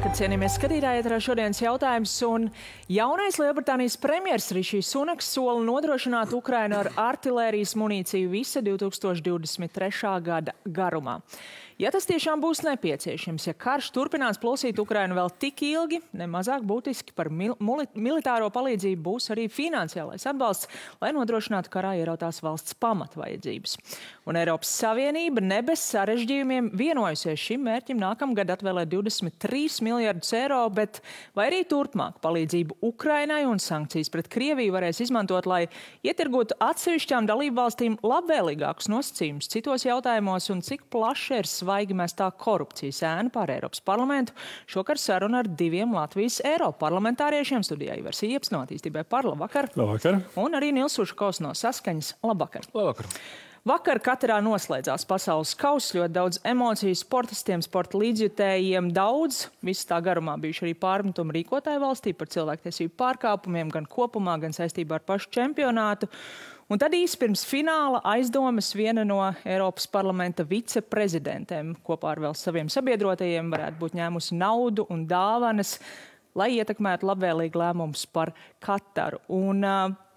Cienījamies skatītāji, ēterā šodienas jautājums, un jaunais Lielbritānijas premjers Rišijs Sunaks sola nodrošināt Ukrainu ar artilērijas munīciju visa 2023. gada garumā. Ja tas tiešām būs nepieciešams, ja karš turpinās plosīt Ukrainu vēl tik ilgi, nemazāk būtiski par militāro palīdzību būs arī finansiālais atbalsts, lai nodrošinātu karā ierautās valsts pamatvajadzības. Un Eiropas Savienība ne bez sarežģījumiem vienojusies šim mērķim nākamgad atvēlēt 23 miljardus eiro, bet vai arī turpmāk palīdzību Ukrainai un sankcijas pret Krieviju varēs izmantot, lai ietirgotu atsevišķām dalībvalstīm labvēlīgākus nosacījumus citos jautājumos un cik plaši ir svaigi mestā korupcijas ēna pār Eiropas parlamentu. Šokar saruna ar diviem Latvijas Eiroparlamentāriešiem studijā Ivars Ieps no Attīstībai par. Labvakar. Labvakar. Un arī Nils Ušakovs no Saskaņas. Labvakar. Labvakar. Vakar Katarā noslēdzās pasaules kauss, ļoti daudz emociju sportistiem, sporta līdzjutējiem, daudz. Viss tā garumā bijuši arī pārmetumi rīkotāju valstī par cilvēktiesību pārkāpumiem, gan kopumā, gan saistībā ar pašu čempionātu. Un tad īsi pirms fināla aizdomas viena no Eiropas parlamenta viceprezidentēm kopā ar vēl saviem sabiedrotajiem varētu būt ņēmusi naudu un dāvanas, lai ietekmētu labvēlīgi lēmumus par Kataru. Un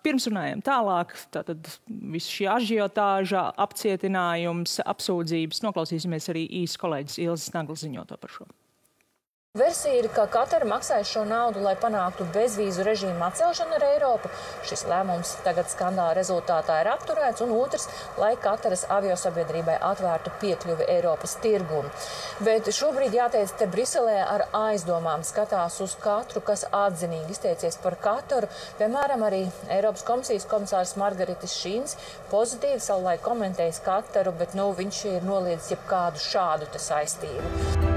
pirms runājam tālāk, tātad visu šī ažiotāža, apcietinājums, apsūdzības, noklausīsimies arī īsi kolēģis Ilzes Naglas ziņoto par šo. Versija ir, ka Katara maksāja šo naudu, lai panāktu bezvīzu režīmu atcelšanu ar Eiropu. Šis lēmums tagad skandāla rezultātā ir apturēts, un otrs, lai Kataras aviosabiedrībai atvērtu piekļuvi Eiropas tirgumu. Bet šobrīd, jāteic, te Briselē ar aizdomām skatās uz katru, kas atzinīgi izteicies par Kataru. Piemēram, arī Eiropas komisijas komisārs Margaritis Šīns pozitīvi savulaik komentējis Kataru, bet viņš ir noliedzis jebkādu šādu te saistību.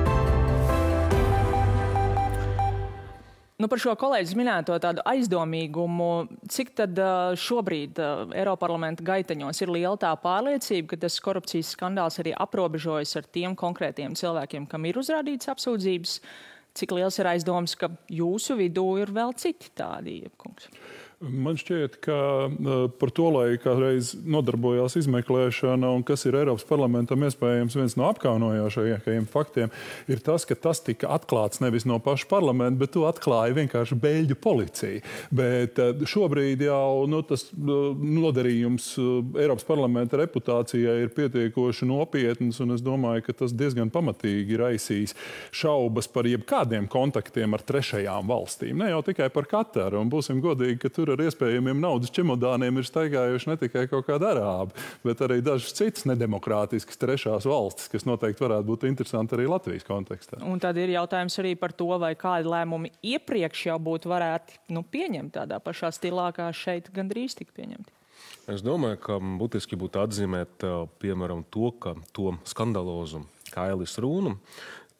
Par šo kolēģis minēto tādu aizdomīgumu, cik tad šobrīd Eiroparlamenta gaiteņos ir liela tā pārliecība, ka tas korupcijas skandāls arī aprobežojas ar tiem konkrētiem cilvēkiem, kam ir uzrādīts apsūdzības? Cik liels ir aizdoms, ka jūsu vidū ir vēl citi tādi, Iepkungs? Man šķiet, ka par to, lai kādreiz nodarbojās izmeklēšana un kas ir Eiropas parlamentam iespējams viens no apkaunojošajiem faktiem, ir tas, ka tas tika atklāts nevis no paša parlamenta, bet to atklāja vienkārši Beļģu policija. Bet šobrīd jau tas nodarījums Eiropas parlamenta reputācijai ir pietiekoši nopietns, un es domāju, ka tas diezgan pamatīgi raisīs šaubas par jebkādiem kontaktiem ar trešajām valstīm. Ne jau tikai par Kataru, un būsim godīgi, ka tur ar iespējamiem naudas čemodāniem ir staigājuši ne tikai kaut kādi arābi, bet arī dažas citas nedemokrātiskas trešās valstis, kas noteikti varētu būt interesanti arī Latvijas kontekstā. Un tad ir jautājums arī par to, vai kādi lēmumi iepriekš jau būtu varētu pieņemt tādā pašā stilā, kā šeit gandrīz tika pieņemti. Es domāju, ka būtiski būtu atzīmēt, piemēram, to skandalozu Kailis Rūnu,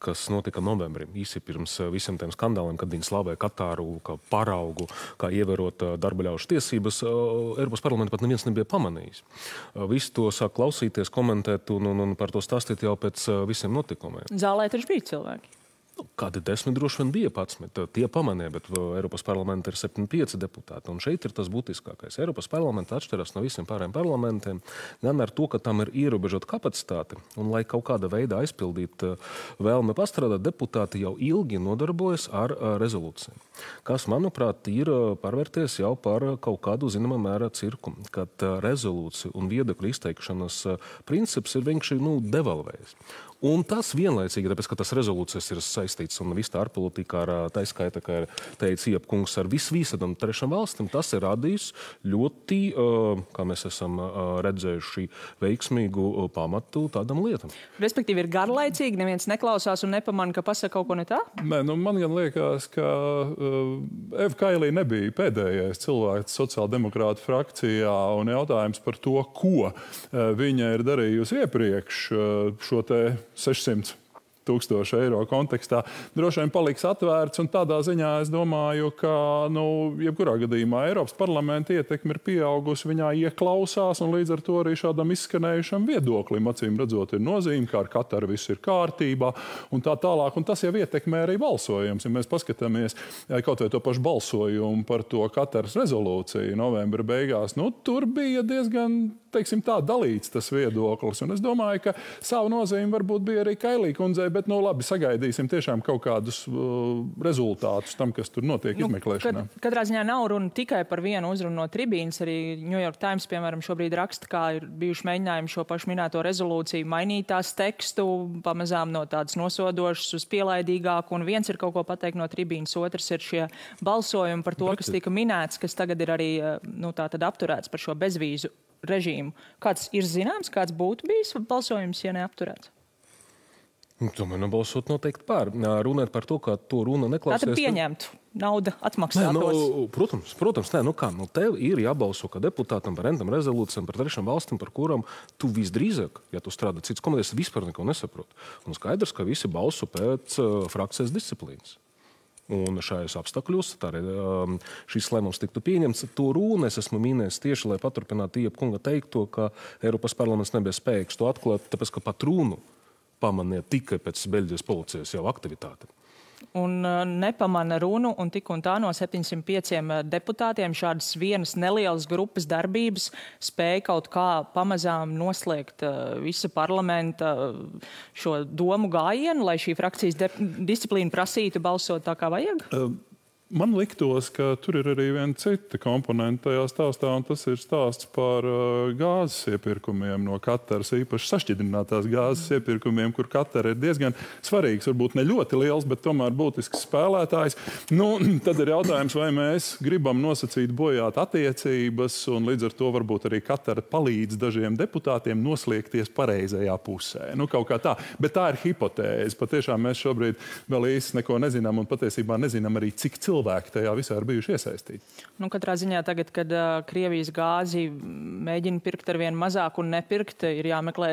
kas notika novembrī, īsi pirms visiem tiem skandāliem, kad viņi slavēja Katāru kā paraugu, kā ievērot darba ļaužu tiesības, Eiropas parlamenta pat neviens nebija pamanījis. Visi to sāk klausīties, komentēt un par to stāstīt jau pēc visiem notikumiem. Zālē taču bija cilvēki. Kādi 10 droši vien bija 11. Tie pamanīja, bet Eiropas parlamentā ir 75 deputāti. Un šeit ir tas būtiskākais. Eiropas parlamenta atšķiras no visiem pārējiem parlamentiem, gan ar to, ka tam ir ierobežota kapacitāte. Un, lai kaut kāda veidā aizpildītu vēlme pastrādāt, deputāti jau ilgi nodarbojas ar rezolūciju. Kas, manuprāt, ir pārvērties jau par kaut kādu zināmā mērā cirku, kad rezolūcija un viedokļu izteikšanas princips ir vienkārši devalvējis. Un tas vienlaicīgi, tāpēc, ka tas rezolūcijas ir saistīts un viss tā ārpolitika ar taiskaita, kā ir teicis Iepkungs, ar visam trešām valstīm, tas ir radījis ļoti, kā mēs esam redzējuši, veiksmīgu pamatu tādam lietam. Respektīvi ir garlaicīgi, neviens neklausās un nepamana, ka pasaka kaut ko ne tā? Nē, man gan liekas, ka Eva Kailī nebija pēdējais cilvēks sociāldemokrātu frakcijā, un jautājums par to, ko viņa ir darījusi iepriekš šo te 600 000 eiro kontekstā, droši vien paliks atvērts, un tādā ziņā es domāju, ka, jebkurā gadījumā Eiropas parlamenta ietekme ir pieaugusi, viņā ieklausās, un līdz ar to arī šādam izskanējušam viedoklim, acīm redzot, ir nozīme, ka ar Kataru viss ir kārtībā, un tā tālāk, un tas jau ietekmē arī balsojums. Ja mēs paskatāmies kaut vai to pašu balsojumu par to Kataras rezolūciju novembra beigās, tur bija diezgan teiksim tā, dalīts tas viedoklis. Un es domāju, ka savu nozīmi varbūt bija arī Kailī kundzei, bet, labi, sagaidīsim tiešām kaut kādus rezultātus tam, kas tur notiek izmeklēšanā. Katrā ziņā nav runa tikai par vienu uzrunu no tribīnas. Arī New York Times, piemēram, šobrīd raksta, kā ir bijuši mēģinājumi šo pašu minēto rezolūciju mainīt tās tekstu, pamazām no tādas nosodošas uz pielaidīgāku. Un viens ir kaut ko pateikt no tribīnas, otrs ir šie balsojumi par to, kas tika minēts, kas tagad ir arī tātad apturēts par šo bezvīzu režīmu. Kāds ir zināms, kāds būtu bijis balsojums, ja neapturēts? Tomēr balsot noteikti pār. Runāt par to, ka to runa neklausās. Tātad pieņemtu, nauda atmaksātos. Protams, tev ir jābalso kā deputātam par rentam rezolūcijām, par trešām valstīm, par kurām tu visdrīzāk, ja tu strādā cits komitejas, vispār neko nesaprot. Un skaidrs, ka visi balso pēc frakcijas disciplīnas. Un šajos apstākļos šis lēmums tiktu pieņemts. To runu es esmu minējis tieši, lai paturpinātu Iepkunga teikto, ka Eiropas parlaments nebija spējīgs to atklāt, tāpēc, ka pat runu pamanīja tikai pēc Beļģijas policijas jau aktivitāte. Un nepamana runu, un tik un tā no 705 deputātiem šādas vienas nelielas grupas darbības spēja kaut kā pamazām noslēgt visa parlamenta šo domu gājienu, lai šī frakcijas disciplīna prasītu balsot tā, kā vajag? Man liktos, ka tur ir arī viena cita komponenta tajā stāstā, un tas ir stāsts par gāzes iepirkumiem no Kataras, īpaši sašķidrinātās gāzes iepirkumiem, kur Katara ir diezgan svarīgs, varbūt ne ļoti liels, bet tomēr būtisks spēlētājs. Tad ir jautājums, vai mēs gribam nosacīt bojāt attiecības, un līdz ar to varbūt arī Katara palīdz dažiem deputātiem noslēgties pareizajā pusē. Kaut kā tā. Bet tā ir hipotēze. Patiešām mēs šobrīd vēl īsti neko nezinām, un patiesībā nezinām arī, cik cilvēki tajā visā ir bijuši iesaistīti. Katrā ziņā tagad, kad Krievijas gāzi mēģina pirkt ar vien mazāk un nepirkt, ir jāmeklē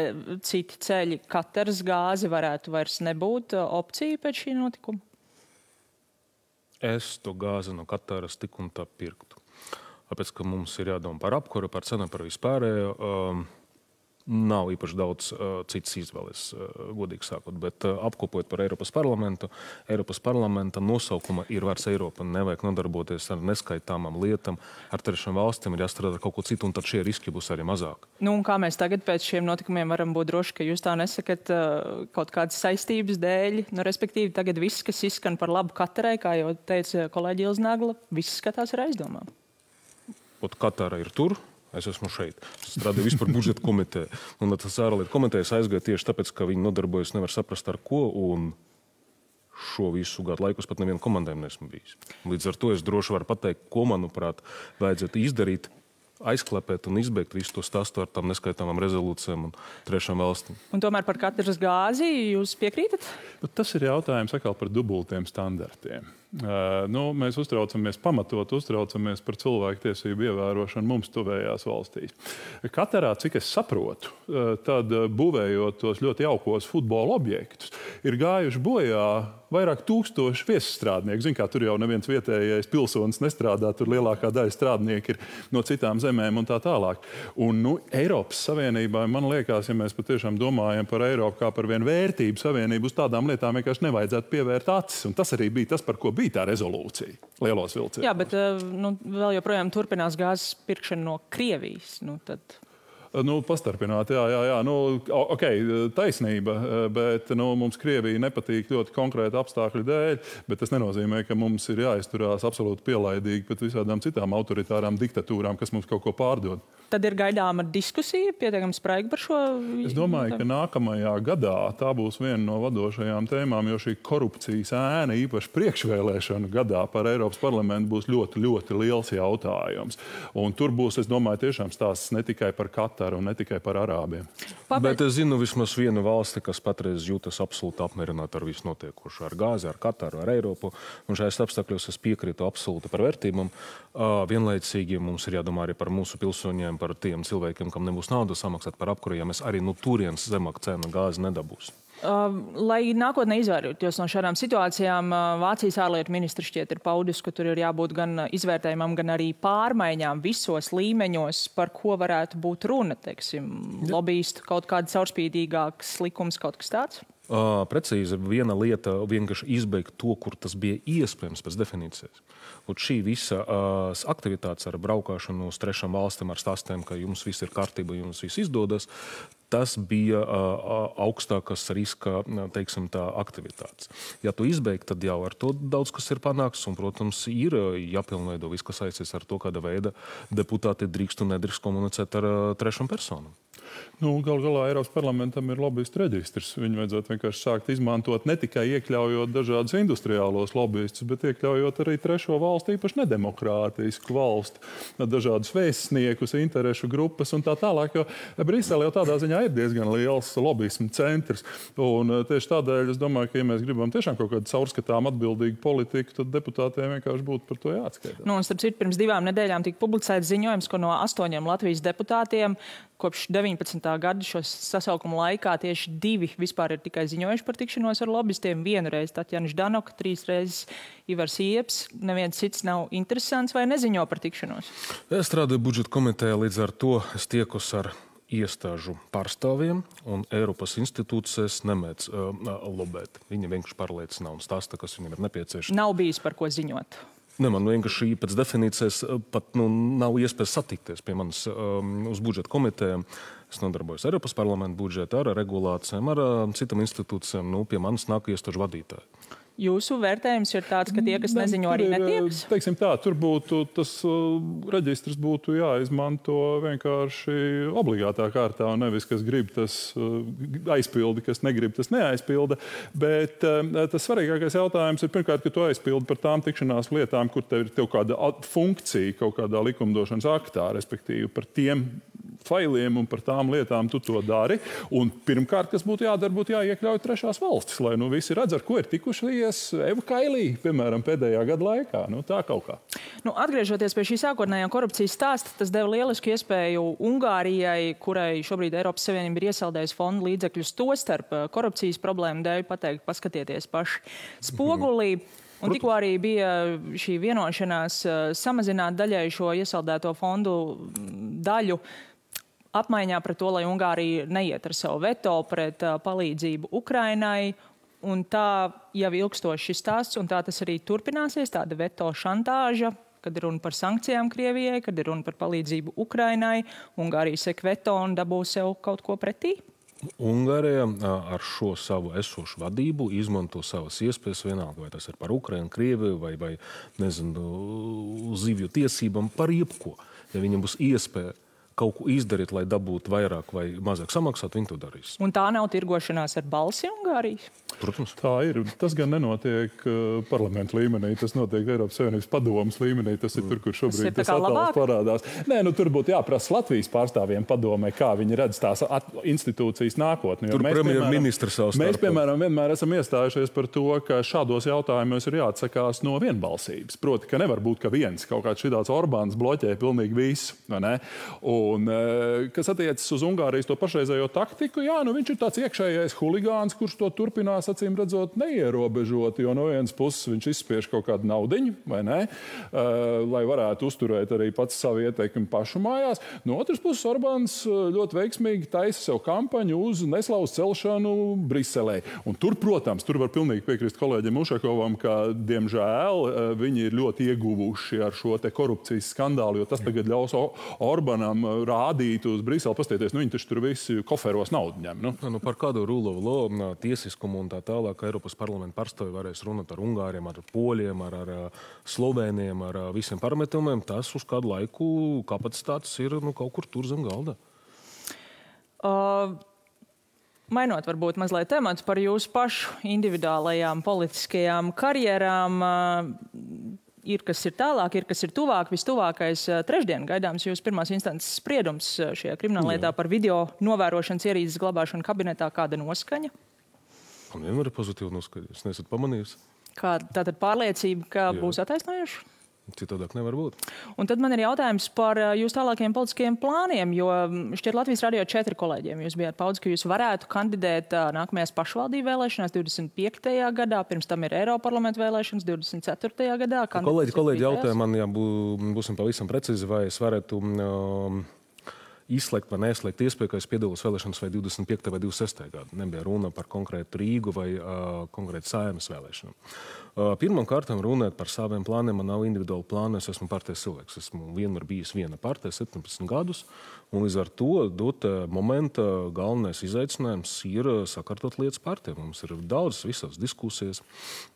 citi ceļi. Kataras gāzi varētu vairs nebūt opcija pēc šī notikuma? Es to gāzi no Kataras tik un tā pirktu. Tāpēc, ka mums ir jādomā par apkuru, par cenu, par vispārējo. Nav īpaši daudz citas izvēles, godīgi sakot, bet apkopojot par Eiropas parlamentu, Eiropas parlamenta nosaukuma ir vairs Eiropa. Nevajag nodarboties ar neskaitāmām lietām, ar trešām valstīm, ir jāstrādā ar kaut ko citu, un tad šie riski būs arī mazāk. Un kā mēs tagad pēc šiem notikumiem varam būt droši, ka jūs tā nesakat kaut kādas saistības dēļ? Respektīvi, tagad viss, kas izskan par labu Katarai, kā jau teica kolēģi Ilznagla, viss skatās ar aizdomām. Katara ir tur. Es esmu šeit. Es strādāju vispār budžeta komitē. Un tas ārlietu komitejas aizgāja tieši tāpēc, ka viņi nodarbojas nevar saprast ar ko, un šo visu gadu laikus pat nevienu komandēm nesmu bijis. Līdz ar to es droši varu pateikt, ko, manuprāt, vajadzētu izdarīt, aizklepēt un izbeigt visu to stāstu ar tām neskaitāmām rezolūcijām un trešām valstīm. Un tomēr par Kataras gāzi jūs piekrītat? Tas ir jautājums atkal par dubultiem standartiem. Mēs pamatot uztraucamies par cilvēktiesību ievērošanu mums tuvējās valstīs. Katarā, cik es saprotu, tad būvējot tos ļoti jaukos futbola objektus, ir gājuši bojā vairāk tūkstoši viesusstrādnieku. Zin, kā tur jau neviens vietējais pilsonis nestrādā, tur lielākā daļa strādnieki ir no citām zemēm un tā tālāk. Un Eiropas Savienībā, man liekas, ja mēs patiešām domājam par Eiropu kā par vienu vērtību savienību, uz tādām lietām vienkārši nevajadzētu pievērt acis. Un tas arī bija tas, par ko bija tā rezolūcija lielos vilcienos. Jā, bet vēl joprojām turpinās gāzes pirkšana no Krievijas. Pastarpināt, jā. Taisnība, bet mums Krievija nepatīk ļoti konkrēti apstākļu dēļ, bet tas nenozīmē, ka mums ir jāizturās absolūti pielaidīgi pret visādām citām autoritārām diktatūrām, kas mums kaut ko pārdod. Tad ir gaidāma diskusija, pietiekami spraiga par šo? Es domāju, ka nākamajā gadā tā būs viena no vadošajām tēmām, jo šī korupcijas ēna, īpaši priekšvēlēšanu gadā par Eiropas parlamentu, būs ļoti, ļoti liels jautājums. Un tur būs, es domāju, tiešām stāsts ne tikai par Kataru un ne tikai par arābiem. Bet es zinu vismaz vienu valsti, kas patreiz jūtas absolūti apmierināta ar visu notiekošo, ar gāzi, ar Kataru, ar Eiropu. Un šajās apstākļos es piekrītu absolūti par vērtībām. Vienlaicīgi mums ir jādomā arī par mūsu pilsoņiem, par tiem cilvēkiem, kam nebūs naudas samaksāt par apkuru, ja mēs arī no turienes zemāk cena gāzi nedabūs. Lai nākotnē izvairītos no šādām situācijām, Vācijas ārlietu ministrs šķiet ir paudis, ka tur ir jābūt gan izvērtējumam, gan arī pārmaiņām visos līmeņos, par ko varētu būt runa, teiksim, lobbyistu kaut kāda caurspīdīgāks likums, kaut kas tāds? Precīzi viena lieta vienkārši izbeigt to, kur tas bija iespējams pēc definīcijas. Un šī visa aktivitātes ar braukāšanu uz trešām valstīm ar stāstiem, ka jums viss ir kārtība, jums viss izdodas, tas bija augstākas riska, teiksim tā, aktivitātes. Ja tu izbeigt, tad jau ar to daudz kas ir panāks, un, protams, ir jāpilnveido viss, kas saistīts ar to, kāda veida deputāti drīkst un nedrīkst komunicēt ar trešām personām. Gal galā Eiropas parlamentam ir lobbyistu reģistrs. Viņu vajadzētu vienkārši sākt izmantot ne tikai iekļaujot dažādus industriālos lobbyistus, bet iekļaujot arī trešo valstu, īpaši nedemokrātisku valstu, dažādus vēstniekus, interešu grupas un tā tālāk, jo Brisele jau tādā ziņā ir diezgan liels lobbyismu centrs. Un tieši tādēļ es domāju, ka, ja mēs gribam tiešām kaut kādu caurskatām atbildīgu politiku, tad deputātiem vienkārši būtu par to jāatskaitās. Un starp citu, pirms 2 nedēļām tika publicēts ziņojums, ka no 8 Latvijas deputātiem kopš 19. gada šo sasaukumu laikā tieši 2 vispār ir tikai ziņojuši par tikšanos ar lobbystiem. 1 reizi Tatjana Ždanoka, 3 reizes Ivars Ieps. Neviens cits nav interesants vai neziņo par tikšanos. Es strādāju budžeta komitejā, līdz ar to es tiekos ar iestāžu pārstāvjiem un Eiropas institūcijas nemēdz lobēt. Viņi vienkārši pārliecina un stāsta, kas viņiem ir nepieciešams. Nav bijis par ko ziņot. Man vienkārši pēc definīcijas pat nav iespējas satikties pie manis uz budžeta komitejām. Es nodarbojos Eiropas parlamenta budžetu, ar regulācijām, ar citām institūcijām. Pie manis nāk iestāžu vadītāji. Jūsu vērtējums ir tāds, ka tie, kas neziņo, arī netiekas? Teiksim tā, tur būtu tas reģistrs būtu jāizmanto vienkārši obligātā kārtā, un nevis, kas grib, tas aizpildi, kas negrib, tas neaizpilda. Bet tas svarīgākais jautājums ir pirmkārt, ka tu aizpildi par tām tikšanās lietām, kur tev ir kāda funkcija kaut kādā likumdošanas aktā, respektīvi par tiem failiem un par tām lietām tu to dari. Un pirmkārt, kas būtu jādara, būtu jāiekļauj trešās valstis, lai visi redz, ar ko ir tikušies Eva Kailī, piemēram, pēdējā gada laikā. Tā kaut kā. Atgriežoties pie šī sākotnējā korupcijas stāsta, tas deva lielisku iespēju Ungārijai, kurai šobrīd Eiropas Savienība ir iesaldējusi fondu līdzekļus tostarp korupcijas problēmu dēļ, pateikt, paskatieties paši spogulī. Un tikko arī bija šī vienošanās samazināt daļai šo iesaldēto fondu daļu apmaiņā pret to, lai Ungārija neiet ar savu veto pret palīdzību Ukrainai. Un tā jau ilgstoši šis stāsts, un tā tas arī turpināsies, tāda veto šantāža, kad ir runa par sankcijām Krievijai, kad ir runa par palīdzību Ukrainai. Ungārija sek veto un dabū sev kaut ko pretī. Ungārija ar šo savu esošu vadību izmanto savas iespējas vienalga, vai tas ir par Ukrainu, Krieviju vai nezinu, zivju tiesībām, par jebko. Ja viņam būs iespēja kaut ko izdarīt, lai dabūtu vairāk vai mazāk samaksāt, viņi to darīs. Un tā nav tirgošanās ar balsi Ungārijas? Protams. Tā ir. Tas gan nenotiek parlamentu līmenī, tas notiek Eiropas Savienības padomas līmenī. Tas ir tur, kur šobrīd tas attēls parādās. Nē, tur būtu jāprasa Latvijas pārstāvjiem padomē, kā viņi redz tās institūcijas nākotni. Tur premjerministrs savs starpā. Mēs, piemēram, vienmēr esam iestājušies par to, ka šādos jautājumos ir jāatsakās no vienbalsības. Proti, ka nevar būt, ka viens kaut kāds šitāds Orbāns bloķē pilnīgi visu, vai ne? Un, kas attiecas uz Ungārijas to pašreizējo taktiku, viņš ir tāds iekšējais huligāns, kurš to turpinās, acīm redzot, neierobežot, jo no vienas puses viņš izspiež kaut kādu naudiņu, vai ne, lai varētu uzturēt arī pats savu ieteikumu pašu mājās. No otras puses, Orbāns ļoti veiksmīgi taisa sev kampaņu uz neslavas celšanu Briselē. Un tur, protams, tur var pilnīgi piekrist kolēģim Ušakovam, ka, diemžēl, viņi ir ļoti ieguvuši ar šo te korupcijas skandālu, jo tas tagad ļaus Orbānam rādīt uz Briseli, pastieties, viņi taču tur visi koferos naudu ņem. Par kādu rule of law, tiesiskumu un tā tālāk Eiropas parlamenta pārstāvji varēs runāt ar Ungāriem, ar Poļiem, ar Slovēniem, ar visiem parametriem. Tas uz kādu laiku kapacitātes ir kaut kur tur zem galda. Mainot varbūt mazliet temats par jūsu pašu individuālajām politiskajām karjerām, ir, kas ir tālāk, ir, kas ir tuvāk. Vistuvākais trešdien gaidāms jūs pirmās instances spriedums šajā krimināllietā par video novērošanas ierīces glabāšanu kabinetā. Kāda noskaņa? Man vienmēr ir pozitīva noskaņa. Es nesat pamanījis. Tātad pārliecība, ka būs attaisnojuši? Citādāk nevar būt. Un tad man ir jautājums par jūsu tālākajiem politiskajiem plāniem, jo šķiet Latvijas radio 4 kolēģiem jūs bijāt paudz, ka jūs varētu kandidēt nākamajās pašvaldību vēlēšanās 25. gadā, pirms tam ir Eiroparlamenta vēlēšanas 24. gadā. Kolēģi jautāja man, ja būsim pavisam precīzi, vai es varētu izslēgt vai neizslēgt iespēju, ka es piedalos vēlēšanas vai 25. vai 26. gadu. Nebija runa par konkrētu Rīgu vai konkrētu Saeimas vēlēšanām. Pirmkārt, runājot par saviem plāniem, man nav individuāli plāni, es esmu partijas cilvēks. Esmu vienmēr bijis viena partija, 17 gadus, un līdz ar to dot momenta galvenais izaicinājums ir sakārtot lietas partijai. Mums ir daudz visās diskusijas,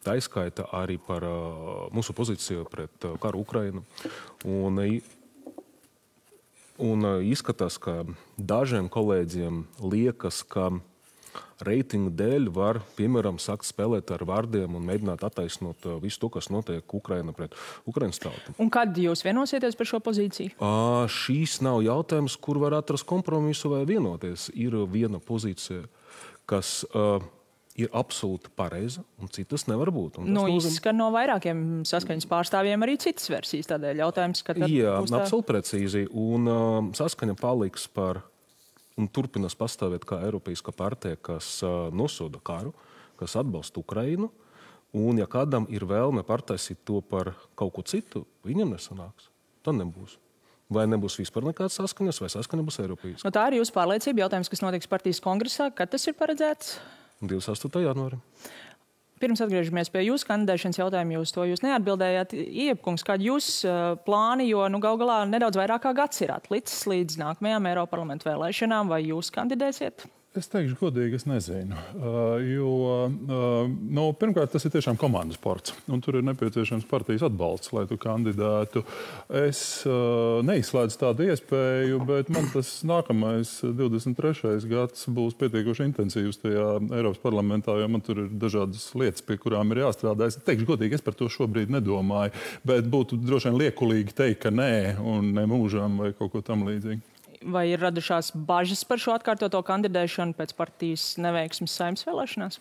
tā izskaita arī par mūsu pozīciju pret karu Ukrainu. Un izskatās, ka dažiem kolēģiem liekas, ka reitingu dēļ var, piemēram, sākt spēlēt ar vārdiem un mēģināt attaisnot visu to, kas notiek Ukraina pret Ukrainas tautu. Un kad jūs vienosieties par šo pozīciju? Šīs nav jautājums, kur var atrast kompromisu vai vienoties. Ir viena pozīcija, kas ir absolūti pareiza, un citas nevar būt. Izskan no vairākiem saskaņas pārstāvjiem arī citas versijas, tādēļ jautājums, ka tad būs tā... absolūti precīzi, un saskaņa paliks par un turpinās pastāvēt kā Eiropeiska partija, kas nosoda karu, kas atbalsta Ukrainu, un ja kādam ir vēlme pārtaisīt to par kaut ko citu, viņam nesanāks. Tā nebūs. Vai nebūs vispār nekāds saskaņas, vai saskaņa būs Eiropeiska. Tā ir jūsu pārliecība, jautājums, kas notiks partijas kongresā, kad tas ir paredzēts? 28. janvāri. Pirms atgriežamies pie jūsu kandidēšanas jautājumu, jūs neatbildējāt. Iepkungs, kādi jūs plāni, jo gal galā nedaudz vairāk kā gads ir atlicis līdz nākamajām Eiroparlamentu vēlēšanām, vai jūs kandidēsiet? Es teikšu godīgi, es nezinu. Pirmkārt, tas ir tiešām komandas sports, un tur ir nepieciešams partijas atbalsts, lai tu kandidētu. Es neizslēdzu tādu iespēju, bet man tas nākamais 23. gads būs pietiekoši intensīvs tajā Eiropas parlamentā, jo man tur ir dažādas lietas, pie kurām ir jāstrādā. Es teikšu godīgi, es par to šobrīd nedomāju, bet būtu droši vien liekulīgi teikt, ka nē, un ne mūžam vai kaut ko tam līdzīgi. Vai ir radušās bažas par šo atkārtoto kandidēšanu pēc partijas neveiksmes Saeimas vēlēšanās?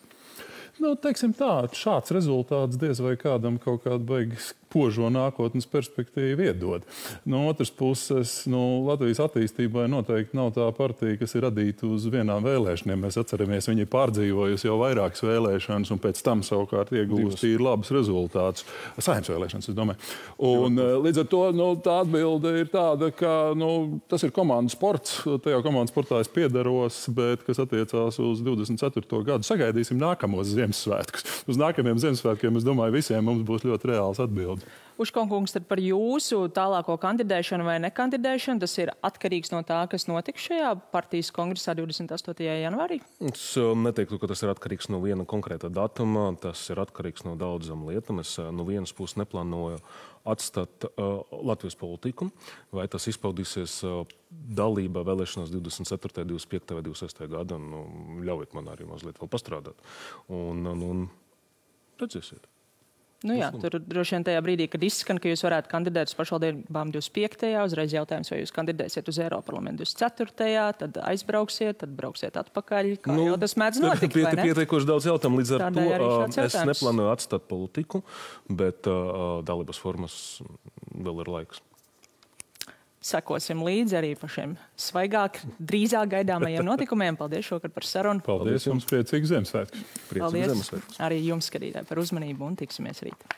Teiksim tā, šāds rezultāts diez vai kādam kaut kādu beigas požo nākotnes perspektīvu iedod. No otras puses, Latvijas attīstībai noteikti nav tā partija, kas ir radīta uz vienām vēlēšanām. Mēs atceramies, viņi ir pārdzīvojusi jau vairākas vēlēšanas un pēc tam savukārt iegūst ir labus rezultātus. Saeimas vēlēšanas, es domāju. Un līdz ar to tā atbilde ir tāda, ka tas ir komandas sports. Tajā komandas sportā es piedaros, bet kas attiecās uz 24. gadu, sagaidīsim nākamos Ziemassvētkus. Uz nākamajiem Ziemassvētkiem, es domāju, visiem mums būs ļoti reāls atbildi. Uškonkungs, tad par jūsu tālāko kandidēšanu vai nekandidēšanu, tas ir atkarīgs no tā, kas notiks šajā partijas kongresā 28. janvārī? Es neteiktu, ka tas ir atkarīgs no viena konkrēta datuma. Tas ir atkarīgs no daudzām lietām. Es no vienas puses neplānoju atstāt Latvijas politiku, vai tas izpaudīsies dalībā vēlēšanās 24., 25. vai 26. gada. Ļaujiet man arī mazliet vēl pastrādāt. Un redzēsiet. Tur droši vien tajā brīdī, kad izskan, ka jūs varētu kandidēt uz pašvaldībām 25. uzreiz jautājums, vai jūs kandidēsiet uz Eiroparlamentu 24. tad aizbrauksiet, tad brauksiet atpakaļ. Kā jau tas mēdz notikt, vai ne? Pietiekoši daudz jautājumu, līdz ar to es neplānoju atstāt politiku, bet dalības formas vēl ir laiks. Sekosim līdzi arī par šiem svaigāk, drīzāk gaidāmajiem notikumiem. Paldies šokar par sarunu. Paldies jums, priecīgs Ziemassvētkus. Paldies arī jums, skatītāji, par uzmanību un tiksimies rīt.